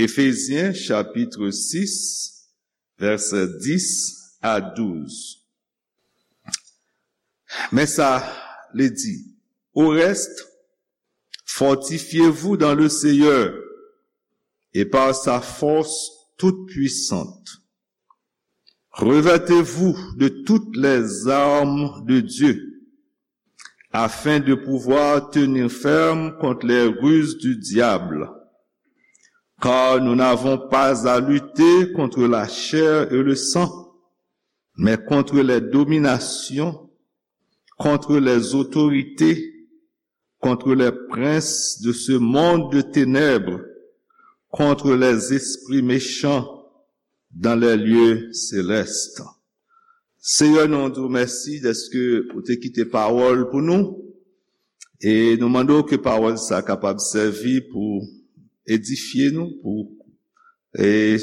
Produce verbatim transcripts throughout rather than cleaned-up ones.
Éphésiens chapitre six, versets dix à douze. Men sa li di, au reste, fortifiez-vous dans le Seigneur et par sa force toute puissante. Revêtez-vous de toutes les armes de Dieu, afin de pouvoir tenir ferme contre les ruses du diable. Car nous n'avons pas à lutter contre la chair et le sang, mais contre les dominations, contre les autorités, contre les princes de ce monde de ténèbres, contre les esprits méchants dans les lieux célestes. Seyè, nou di w mèsi dèske ou te kite pawòl pou nou. E nou mande w ke pawòl sa kapab sèvi pou edifye nou, pou e,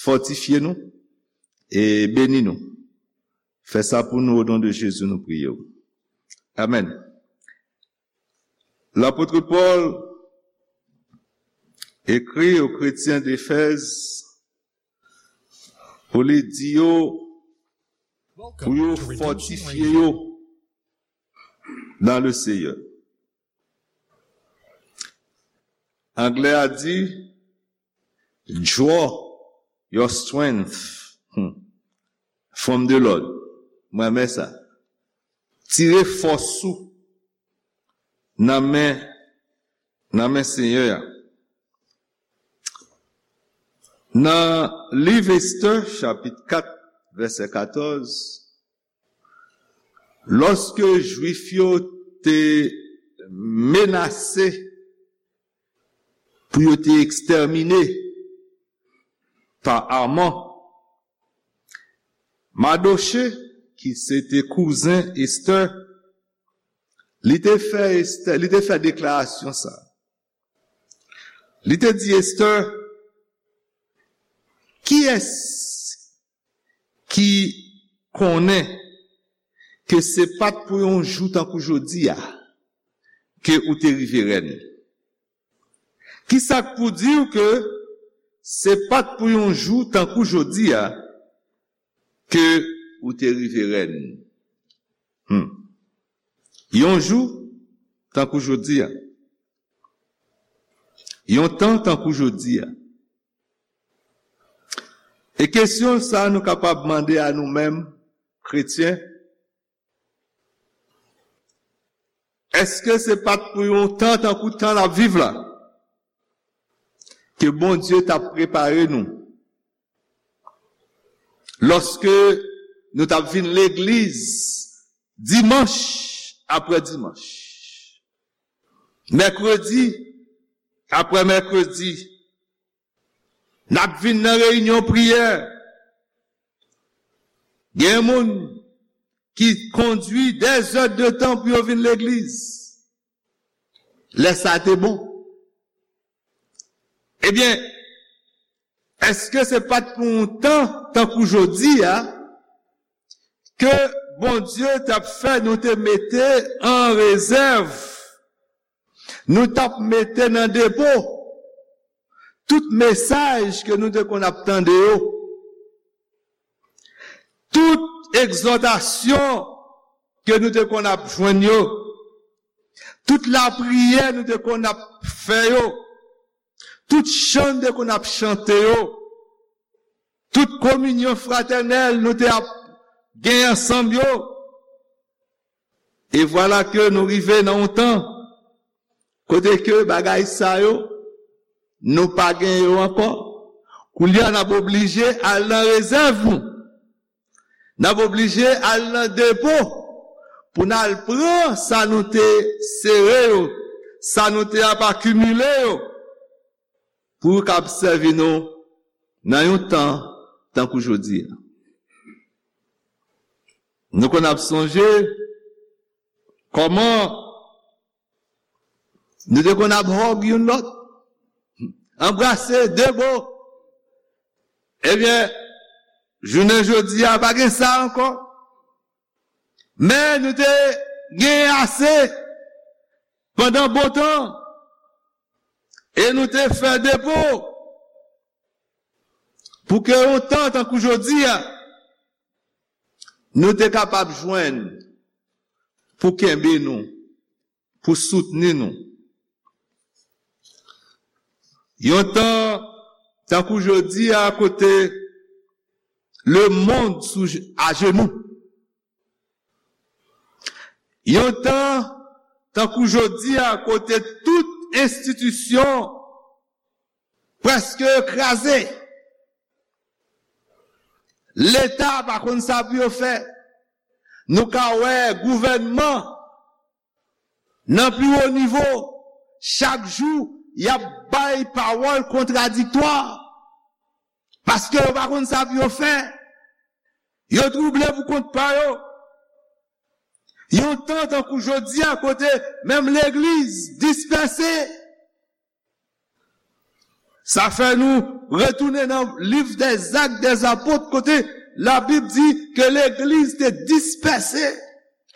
fòtifye nou, e beni nou. Fè sa pou nou, o non de Jezi, nou priye w. Amèn. Lapot Pòl ekri o kretyen Efèz pou li di yo, pou yo fòtifye yo dans le Seigneur. Anglè a di, draw your strength, hmm, from the Lord. Mwen renmen sa. Tire fòs ou nan men, nan men Senyè a. Nan liv Estè, chapit kat, vèsè katòz, lòske Jwif yo te menase pou yo te ekstèmine pa Aman, Madoche, ki se te kouzen Estè, li te fè Estè, li te fè deklarasyon sa. Li te di Estè, kiyès ki konnen ke se pa t pou yon jou tankou jodi a ke ou te rive rèn? Kisa k pou di w ke se pa t pou yon jou tankou jodi a ke ou te rive rèn? Hmm. Yon jou tankou jodi a. Yon tan tankou jodi a. E kesyon sa nou kapab mande a nou menm, kretyen, èske se pa t pou yon tan tankou tan n ap viv la ke Bondye t ap prepare nou lòske nou t ap vin legliz dimanch apre dimanch, mèkredi apre mèkredi, n ap vin nan reyinyon priyè. Gen moun ki kondui dèzèdtan pou yo vin legliz. Lè sa te bon. Ebyen, èske se pa t pou yon tan tankou jodi a ke Bondye t ap fè nou te mete an rezèv, nou t ap mete nan depo tout mesaj ke nou te konn ap tande yo, tout egzòtasyon ke nou te konn ap jwenn yo, tout lapriyè nou te konn ap fè yo, tout chan nou te konn ap chante yo, tout kominyon fratènèl nou te ap gen ansanm yo. E vwala ke nou rive nan yon tan kote ke bagay sa yo, nou pa gen yo ankò. Koulye a, n ap oblije al nan rezèv nou. N ap oblije al nan depo pou n al pran sa nou te sere yo, sa nou te ap akimile yo, pou yo kab sèvi nou nan yon tan tankou jodi a. Nou konn ap sonje kòman nou te konn ap hug youn lòt, anbrase de bo. Ebyen, jounen jodi a, pa gen sa ankò. Men nou te genyen ase pandan bon tan. E nou te fè depo. Pou ke yon tan tankou jodi a, nou te kapab jwenn pou kenbe nou, pou soutni nou. Yon tan tankou jodi a, kote lemonn sou ajenou. Yon tan tankou jodi a, kote tout enstitisyon prèske kraze. Leta pa konn sa pou yo fè. Nou ka wè gouvènman nan pi wo nivo, chak jou, y ap bay pawòl kontradiktwa. Paske yo pa konn sa pou yo fè. Yo twouble pou kont pa yo. Yon tan tankou jodi a, kote menm legliz dispèse. Sa fè nou retounen nan liv dèzak dèzapot, kote Labib di ke legliz te dispèse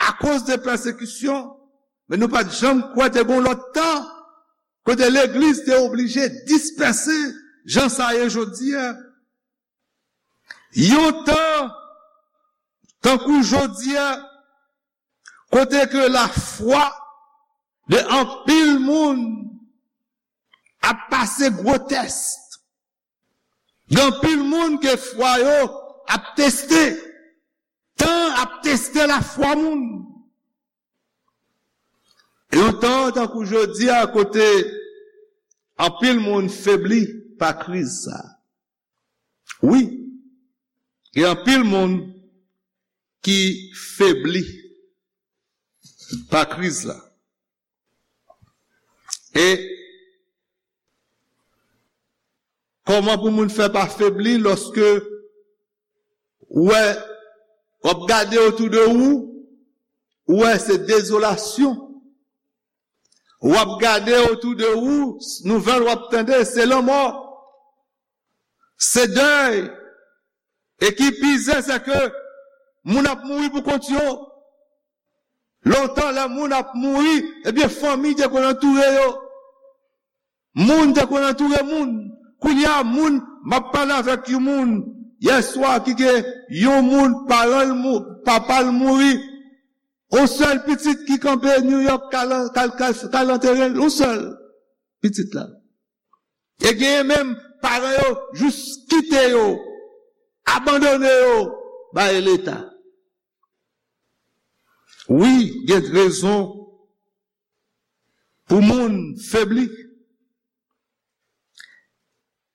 akoz de pèsekisyon. Men nou pa t janm kwè te gen yon lòt tan kote legliz te oblije dispèse jan sa ye jodi a. Yon tan tankou jodi a, kote ke lafwa de anpil moun ap pase gwo tès. Gen anpil moun ke fwa yo ap teste. Tan ap teste lafwa moun. Yon tan tankou jodi a, kote anpil moun febli pa kriz sa. Wi, gen anpil moun ki febli pa kriz la. E kòman pou moun fè pa febli lòske ou wè, w ap gade otou de ou, ou wè se dezolasyon. W ap gade otou de ou, nouvèl w ap tande, se lanmò, se dèy. E ki pi zen, se ke moun ap mouri pou kont yo. Lontan, lè moun ap mouri, ebyen, fanmi te konn antoure yo. Moun te konn antoure moun. Kounye a, moun, m ap pale avèk yon moun yèswa ki gen yon moun, paran l mou-, papa l mouri. Yon sèl pitit ki kanpe New York, k al, k al, k al, k al antere l, yon sèl pitit la. E genyen menm paran yo jis kite yo, abandone yo bay Leta. Wi, gen rezon pou moun febli.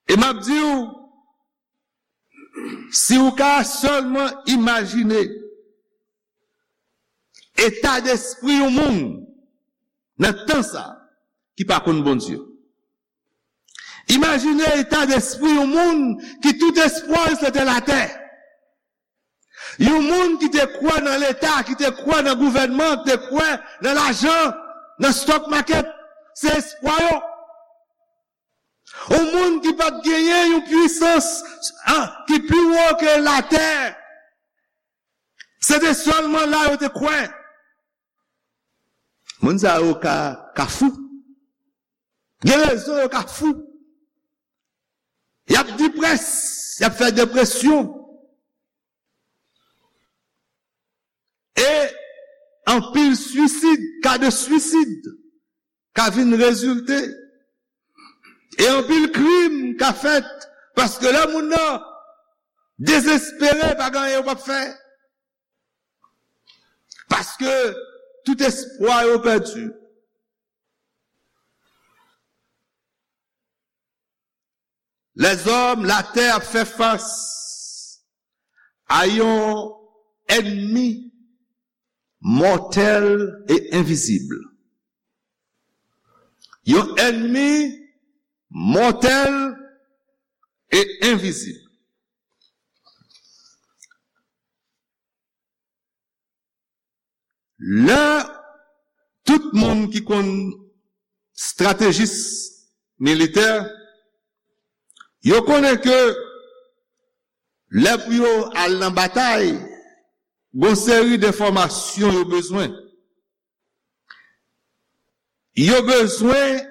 E m ap di w, si w ka sèlman imajine eta despri yon moun nan tan sa ki pa konn Bondye. Imajine eta despri yon moun ki tout espwa l se te latè. Yon moun ki te kwè nan Leta, ki te kwè nan gouvènman, ki te kwè nan lajan, nan stock market, se espwa yo. Yon moun ki pa t genyen yon pwisans, ah, ki pi wo ke latè. Se te sèlman la yo te kwè. Moun sa yo ka, ka fou. Gen rezon yo ka fou. Y ap deprès, y ap fè depresyon. E anpil swisid, ka de swisid ka vin rezilte. E anpil krim ka fèt paske lè moun nan dezespere, pa gen anyen yo p ap fè. Paske tout espwa yo pèdi. Lèzòm, latè ap fè fas a yon ènmi mòtèl e envizib. Yon ènmi mòtèl e envizib. Lè tout moun ki konn estratejis militè, yo konnen ke lè pou yo al nan batay, gon seri denfòmasyon yo bezwen. Yo bezwen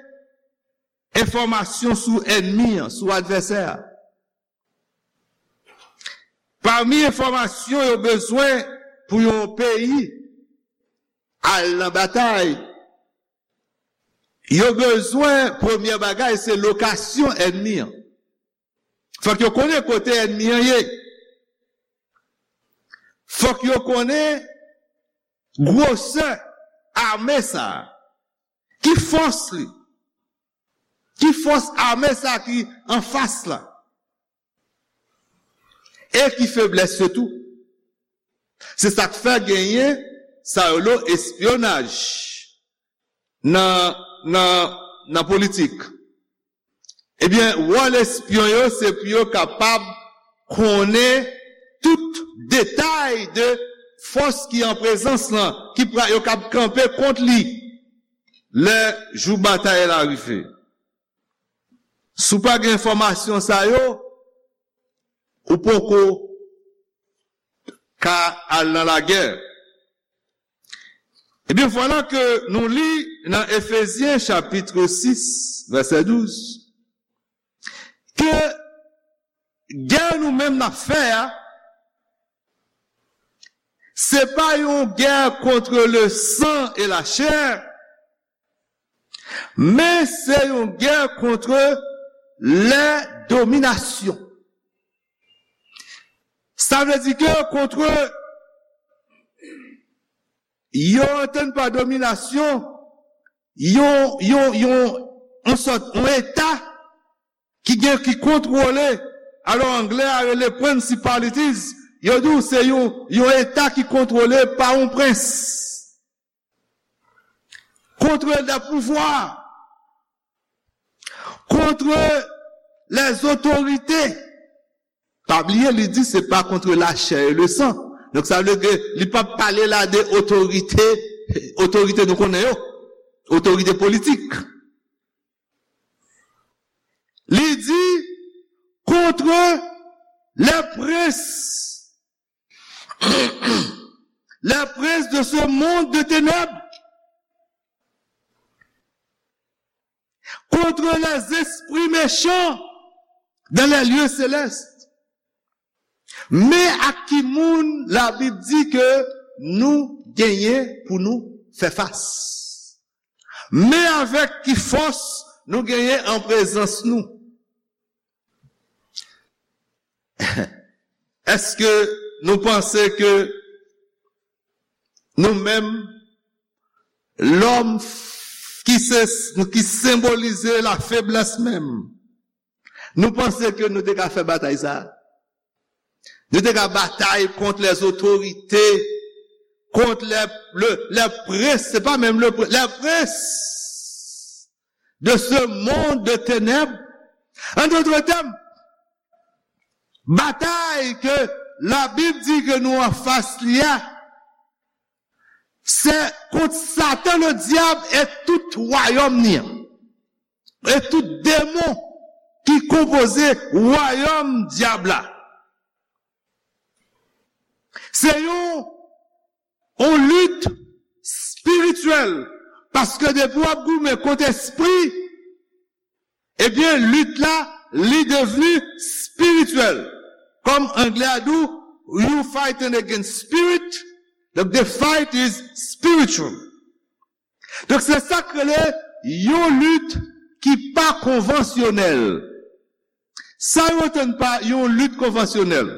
enfòmasyon sou ènmi an, sou advèsè a. Pami enfòmasyon yo bezwen pou yon peyi al nan batay, yo bezwen, premye bagay, se lokasyon ènmi an. Fòk yo konnen kote ènmi an ye. Fòk yo konnen gwosè ame sa a. Ki fòs li? Ki fòs ame sa a ki anfas la? E ki feblès yo tou? Se sa k fè genyen sa yo lo espyonaj nan, nan, nan politik. Ebyen, wòl espyon yo, se pou yo kapab konnen tout detay de fòs ki an prezans lan, ki pra, yo kab kanpe kont li lè jou batay la rive. Si w pa gen enfòmasyon sa yo, ou poko ka al nan lagè. Ebyen, vwala ke nou li nan Efezyen chapit sis, vèsè douz, ke gè nou menm n ap fè a, se pa yon gè contre le sang et la chair, men se yon gè contre les dominations. Sa vle di ke contre, yo antann pa dominasyon, yon, yon, yon, yon sòt, yon eta ki gen, ki kontwole. Alò, anglè a rele principalities. Yo di w se yon, yon eta ki kontwole pa yon prens. Contre des pouvoirs, contre les autorités. Pa bliye, li di se pa contre la chair et le sang. Donk, sa vle di li p ap pale la de otorite, otorite nou konnen yo, otorite politik. Li di contre les princes, les princes de ce monde de ténèbres, contre les esprits méchants dans les lieux célestes. Men ak ki moun Labib di ke nou genyen pou nou fè fas? Men avèk ki fòs nou genyen an prezans nou? Èske nou panse ke nou menm, lòm ki se, ki senbolize lafeblès menm, nou panse ke nou te ka fè batay sa a? Nou te ka batay kont les autorités, kont les, le, les princes, se pa menm le prince, les princes de ce monde de ténèbres. En d'autres termes, batay ke Labib di ke nou anfas li a, se kont Satan le dyab e tout wayòm ni an, e tout demon ki konpoze wayòm dyab la. Se yon, yon lit espirityèl, paske depi w ap goumen kont espri, ebyen, lit la, li devni espirityèl. Kòm anglè a di w, you fighting against spirit, donc the fight is spiritual. Donk, se sa k rele yon lit ki pa konvansyonèl. Sa yo antann pa yon lit konvansyonèl?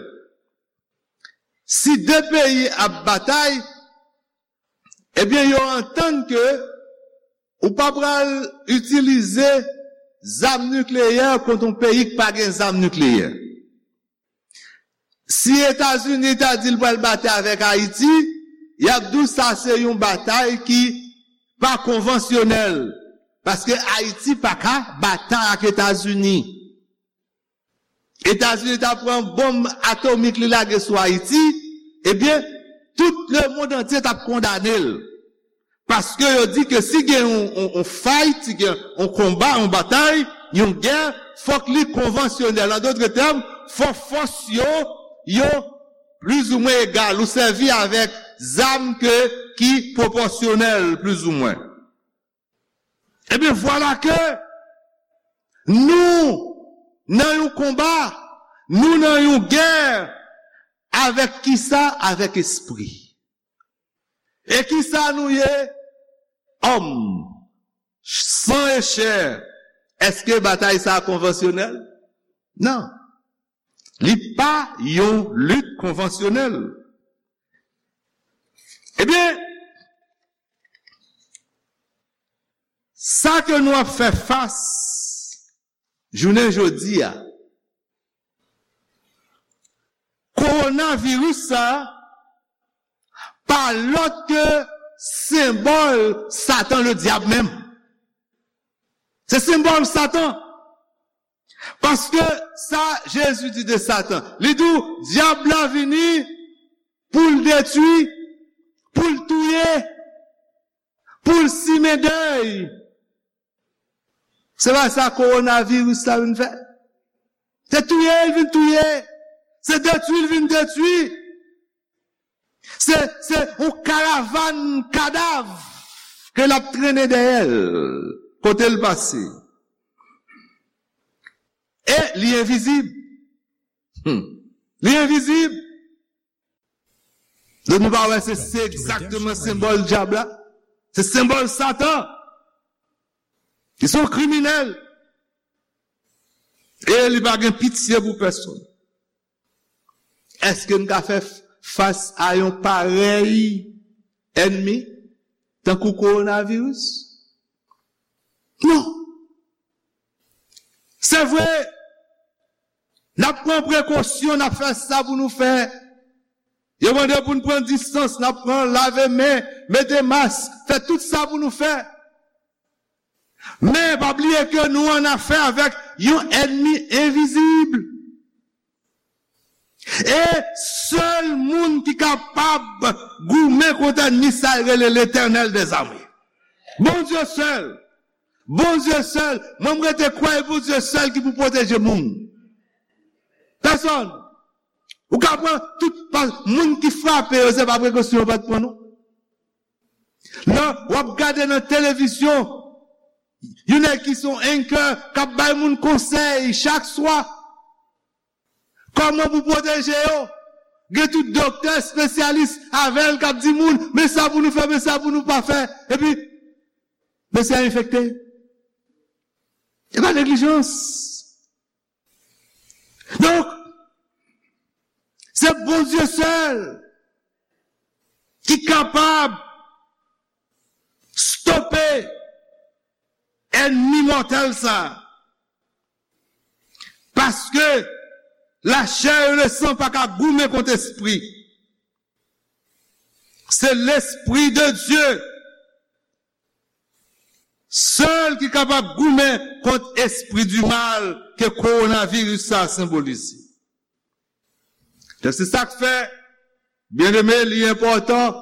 Si de peyi ap batay, ebyen, yo antann ke ou pa pral itilize zam nikleyè kont yon peyi k pa gen zam nikleyè. Si Etazini ta di l pral batay avèk Ayiti, y ap di w sa se yon batay ki pa konvansyonèl, paske Ayiti pa ka batay ak Etazini. Etazini ta pran bonm atomik li lage sou Ayiti, ebyen, tout lemonn antye t ap kondane l. Paske yo di ke si gen yon, yon, yon fight, si gen yon konba, yon batay, yon gè, fòk li konvansyonèl. An dotre tèm, fòk fòs yo, yo plizoumwen egal. Ou sèvi avèk zam ke, ki pwopòsyonèl, plizoumwen. Ebyen, vwala ke nou nan yon konba, nou nan yon gè Avèk kisa? Avèk espri. E kisa nou ye? Òm, san e chè. Èske batay sa a konvansyonèl? Non. Li pa yon lit konvansyonèl. Ebyen, sa ke nou ap fè fas jounen jodi a, kowonaviris sa a pa lòt ke senbòl Satan, le dyab menm. Se senbòl Satan. Paske sa Jezi di de Satan, li di w, dyab la vini pou l detwi, pou l touye, pou l simen dèy. Se pa sa kowonaviris la vin fè. Se touye l vin touye. Se detwi l vin detwi. Se, se yon karavàn kadav ke l ap trennen dèyè l kote l pase. E li envizib. Hmm. Li envizib. Donk nou pa wè se, se egzakteman senbòl dyab la? Se senbòl Satan. Li se yon kriminèl. E li pa gen pitye pou pèsonn. Èske n ka fè f-, fas a yon parèy ènmi tankou kowonaviris? Non. Se vre, n ap pran prekosyon, n ap fè sa pou nou fè. Yo mande pou n pran distans, n ap pran lave men, mete mask, fè tout sa pou nou fè. Men, pa bliye ke nou an afè avèk yon ènmi envizib. E sèl moun ki kapab goumen kont ènmi sa a rele Letènèl dèzame. Bondye sèl. Bondye sèl. Mwen, m rete kwè e Bondye sèl ki pou pwoteje moun. Pèsonn. Ou ka pran tout pa, moun ki frape yo, se pa prekosyon yo pa t pran, non. Lè w ap gade nan televizyon, yon nèg ki se yon anchor k ap bay moun konsèy chak swa. Kòman pou pwoteje yo? Gen tout doktè espesyalis avè l k ap di moun, men sa pou nou fè, men sa pou nou pa fè. Epi, mesye a enfekte. E pa neglijans. Donk, se Bondye sèl ki kapab stope ènmi mòtèl sa a. Paske lachè e lesan pa ka goumen kont espri. Se Lespri de Dye sèl ki kapab goumen kont espri di mal ke kowonaviris sa a senbolize. Donk, se sa k fè, byeneme, li enpòtan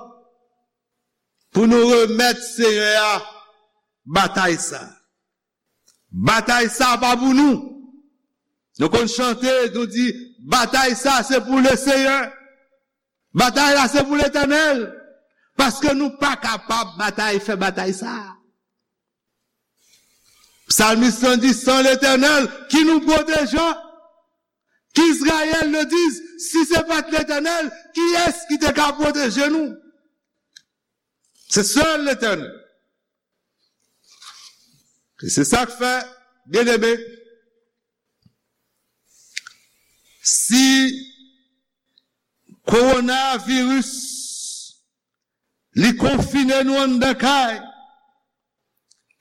pou nou remèt Seyè a batay sa a. Batay sa a pa pou nou. Nou konn chante, nou di, batay sa a se pou Leseyè. Batay la se pou Letènèl. Paske nou pa kapab batay, fè batay sa a. Psalmiste la di, sans l'Éternel, qui nous protégea? Qu'Israël le dise, si se pa t Letènèl, kiyès ki te ka pwoteje nou? Se sèl Letènèl. E se sa k fè, byeneme, si kowonaviris li konfine nou anndan kay,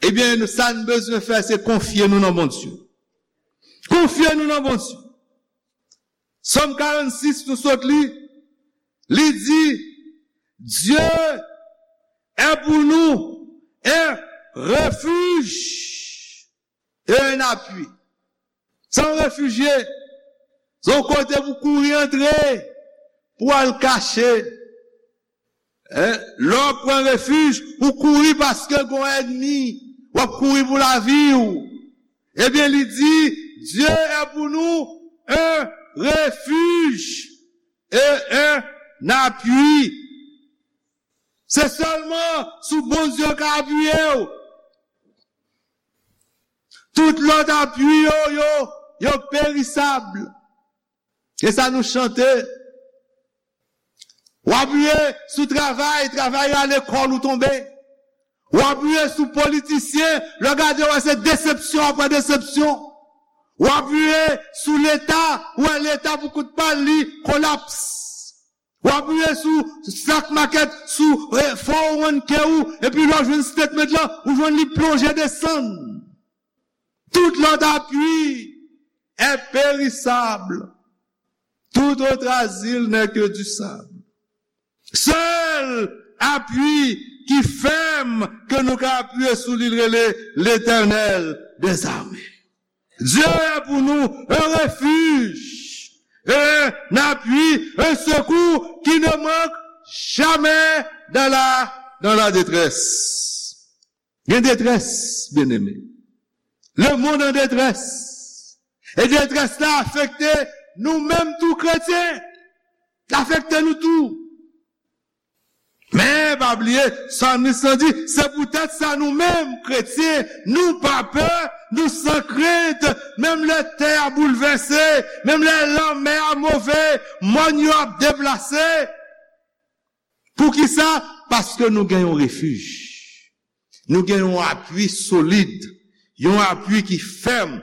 ebyen, sa n bezwen fè, se konfye nou nan Bondye. Konfye nou nan Bondye. Sòm karannsis, nou sot li, li di, Dieu est pour nous un refuge et un appui. Se yon refijye. Se yon kote pou kouri antre, pou al kache. Hein? Lè w pran refij, ou kouri paske gon ènmi. W ap kouri pou lavi w. Ebyen, li di, Dieu est pour nous un refuge et un appui. Se sèlman sou Bondye w ka apiye w. Tout lòt apui yo, yo, yo perisab. E sa nou chante. W apiye sou travay, travay rale kòl ou tonbe. W apiye sou politisyen, lè w gade w wè se desepsyon apre desepsyon. W apiye sou Leta, w wè Leta pou kout pa l li kolaps. W apiye sou stock market, sou eh, four oh one k ou, epi lè w jwenn statement lan, ou jwenn li plonje desann. Tout lòt apui est périssable. Tout autre asile n'est que du sable. Sèl apui ki fèm ke nou ka apiye sou li rele Letènèl dèzame. Dieu est pour nous un refuge, un appui, un secours qui ne manque jamais dans la, dans la détresse. Gen detrès, byeneme. Le monde en détresse. E detrès la afekte nou menm tou kretyen. L afekte nou tou. Men, pa bliye, salmis lan di, se poutèt sa nou menm, kretyen, nou pa pè, nou san krent, menm lè tè a boulvèse, menm lè lanmè a move, mòn yo ap deplase. Poukisa? Paske nou gen yon refij. Nou gen yon apui solid, yon apui ki fèm.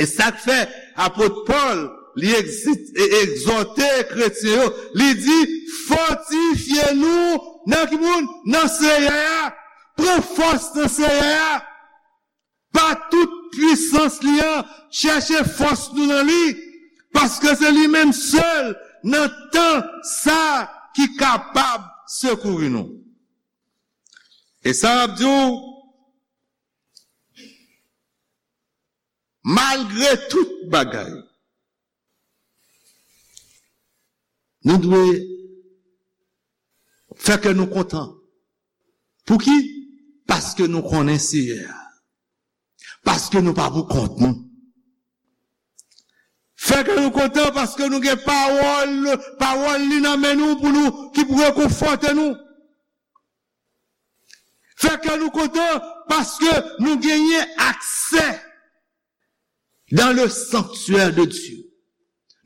E sa k fè apot Pòl, li egzi- e- egzòte kretyen yo, li di, fòtifye nou nan ki moun? Nan Seyè a. Pran fòs nan Seyè a. Pa tout pwisans li an, chèche fòs nou nan li, paske se li menm sèl nan tan sa ki kapab sekouri nou. E sa m ap di w, malgre tout bagay, nou dwe fè kè nou kontan. Pouki? Paske nou konnen Seyè a. Paske nou pa pou kont nou. Fè kè nou kontan paske nou gen pawòl, pawòl li nan men nou pou nou, ki pou rekonfòte nou. Fè kè nou kontan paske nou genyen aksè dans le sanctuaire de Dieu.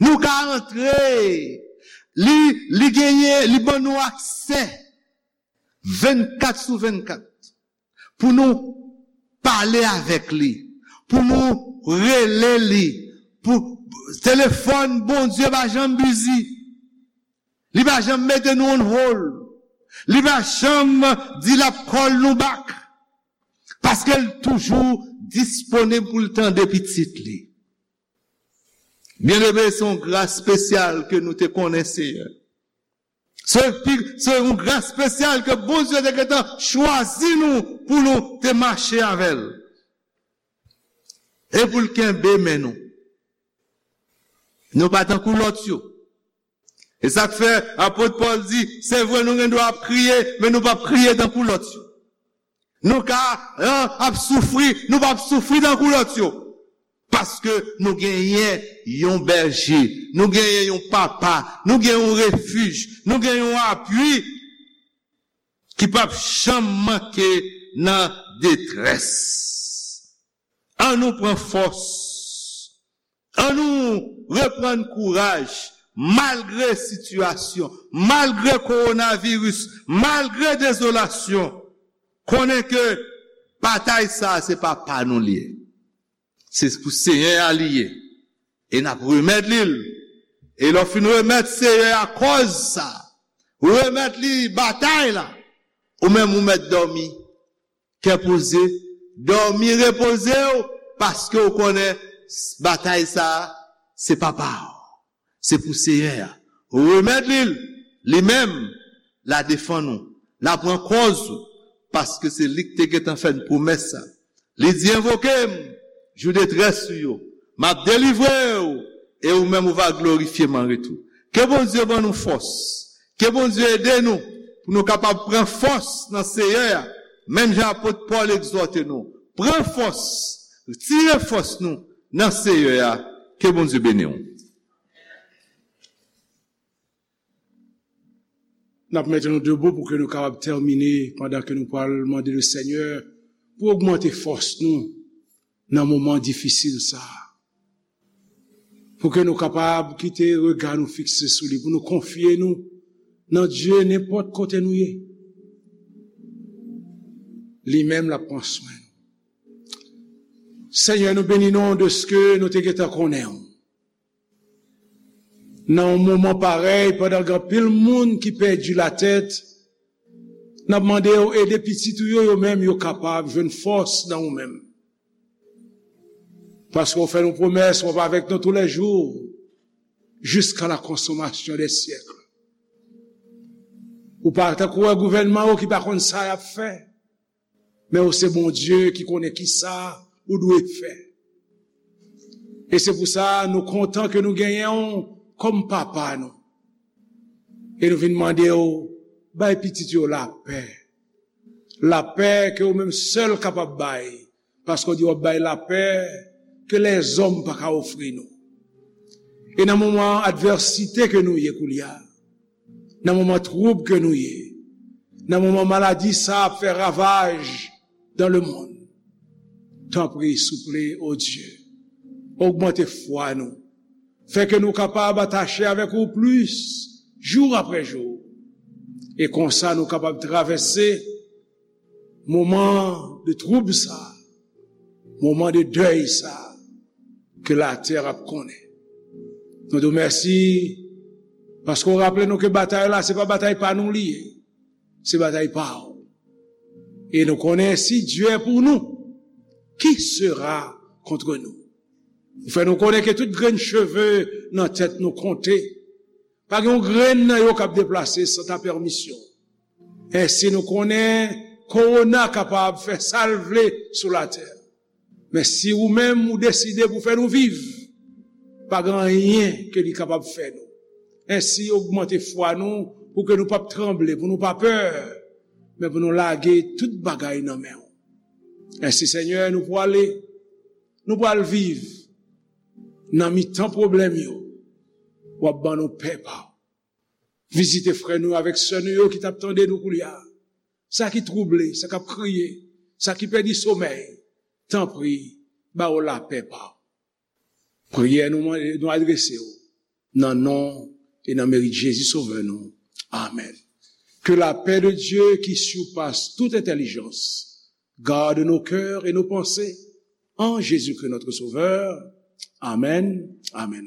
Nou ka antre, li, li genyen, li ban nou aksè vennkat sou vennkat pou nou pale avèk li, pou nou rele li, pou telefòn Bondye pa janm bizi. Li pa janm mete nou on hold. Li pa janm di l ap call nou back. Paske l toujou disponib pou l tande pitit li. Byeneme, se yon gras espesyal ke nou te konnen Seyè. Se pi- se yon gras espesyal ke Bondye te gentan chwazi nou pou nou te mache avè l. E pou l kenbe men nou. Nou pa tankou lòt yo. E sa k fè apot Pòl di, se vre nou gen dwa ap kriye, men nou p ap kriye tankou lòt yo. Nou ka an, ap soufri, nou p ap soufri tankou lòt yo. Paske nou genyen yon bèje, nou genyen yon papa, nou gen yon refij, nou gen yon apui ki p ap janm manke nan detrès. An nou pran fòs. An nou reprann kouraj, malgre sitiyasyon, malgre kowonaviris, malgre dezolasyon. Konnen ke batay sa a se pa pa nou li ye. Se pou Seyè a li ye. E n ap remèt li l. E lè w fin remèt Seyè a kòz sa, ou remèt li batay la, ou menm ou mèt dòmi. Kè poze, dòmi repoze w, paske w konnen batay sa a, se pa pa w. Se pou Seyè a. Remèt li l, li menm, l a defann ou, l a pran kòz ou, paske se li k te gentan fè n pwomès sa. Li di, envoke m, jou detrès ou yo, m ap delivre w, e ou menm ou va glorifye m an retou. Ke Bondye ban nou fòs, ke Bondye ede nou pou nou kapab pran fòs nan Seyè a, menm jan apot Pòl egzòte nou. Pran fòs, tire fòs nou nan Seyè a. Ke Bondye beni w. N ap mete nou debou pou ke nou kapab tèmine pandan ke nou pral mande le Senyè pou ogmante fòs nou nan moman difisil sa a. Pou ke nou kapab kite rega nou fikse sou li, pou nou konfye nou nan Dye nenpòt kote nou ye. Li menm l ap pran swen nou. Senyè, nou beni non deske nou te gentan konnen w. Nan yon moman parèy, pandan gen anpil moun ki pèdi latèt, n ap mande w ede pitit ou yo, yo menm yo kapab jwenn fòs nan ou menm. Paske w fè nou pwomès, w ap avèk nou toulèjou, jusqu'à la consommation des siècles. Ou pa tankou wè gouvènman yo ki pa konn sa y ap fè, men ou se Bondye ki konnen ki sa ou dwe fè. E se pou sa nou kontan ke nou genyen w kòm papa nou. E nou vin mande w, bay pitit yo lapè. Lapè ke ou menm sèl kapab bay, paske w di w ap bay lapè ke lèzòm pa ka ofri nou. E nan moman advèsite ke nou ye koulye a, nan moman twoub ke nou ye, nan moman maladi sa ap fè ravaj dans le monde, tanpri, souple, o Dye, ogmante fwa nou, fè ke nou kapab atache avèk ou plis, jou apre jou, e konsa nou kapab travèse moman de twoub sa, moman de dèy sa ke latè ap konnen. Nou di w mèsi paske w raple nou ke batay la se pa batay pa nou li ye, se batay pa w. E nou konnen si Dye pou nou, ki sera contre nous? Ou fè nou konnen ke tout grenn cheve nan tèt nou konte. Pa gen yon grenn nan yo k ap deplase san ta pèmisyon. Ensi nou konnen kowona kapab fè sa l vle sou latè. Men si ou menm ou deside pou fè nou viv, pa gen anyen ke li kapab fè nou. Ensi ogmante fwa nou pou ke nou p ap tranble, pou nou pa pè, men pou nou lage tout bagay nan men w. Ensi Senyè, nou pwale, nou pral viv nan mitan pwoblèm yo. W ap ban nou pè pa w. Vizite frè nou avèk sè nou yo ki t ap tande nou koulye a. Sa ki twouble, sa k ap kriye, sa ki pèdi somèy, tanpri, ba yo lapè pa w. Priyè nou mande, nou adrese w nan non e nan merit Jezi Sovè nou. Amèn. Que la paix de Dieu qui surpasse toute intelligence garde nos cœurs et nos pensées en Jésus-Christ notre Sauveur. Amèn. Amèn.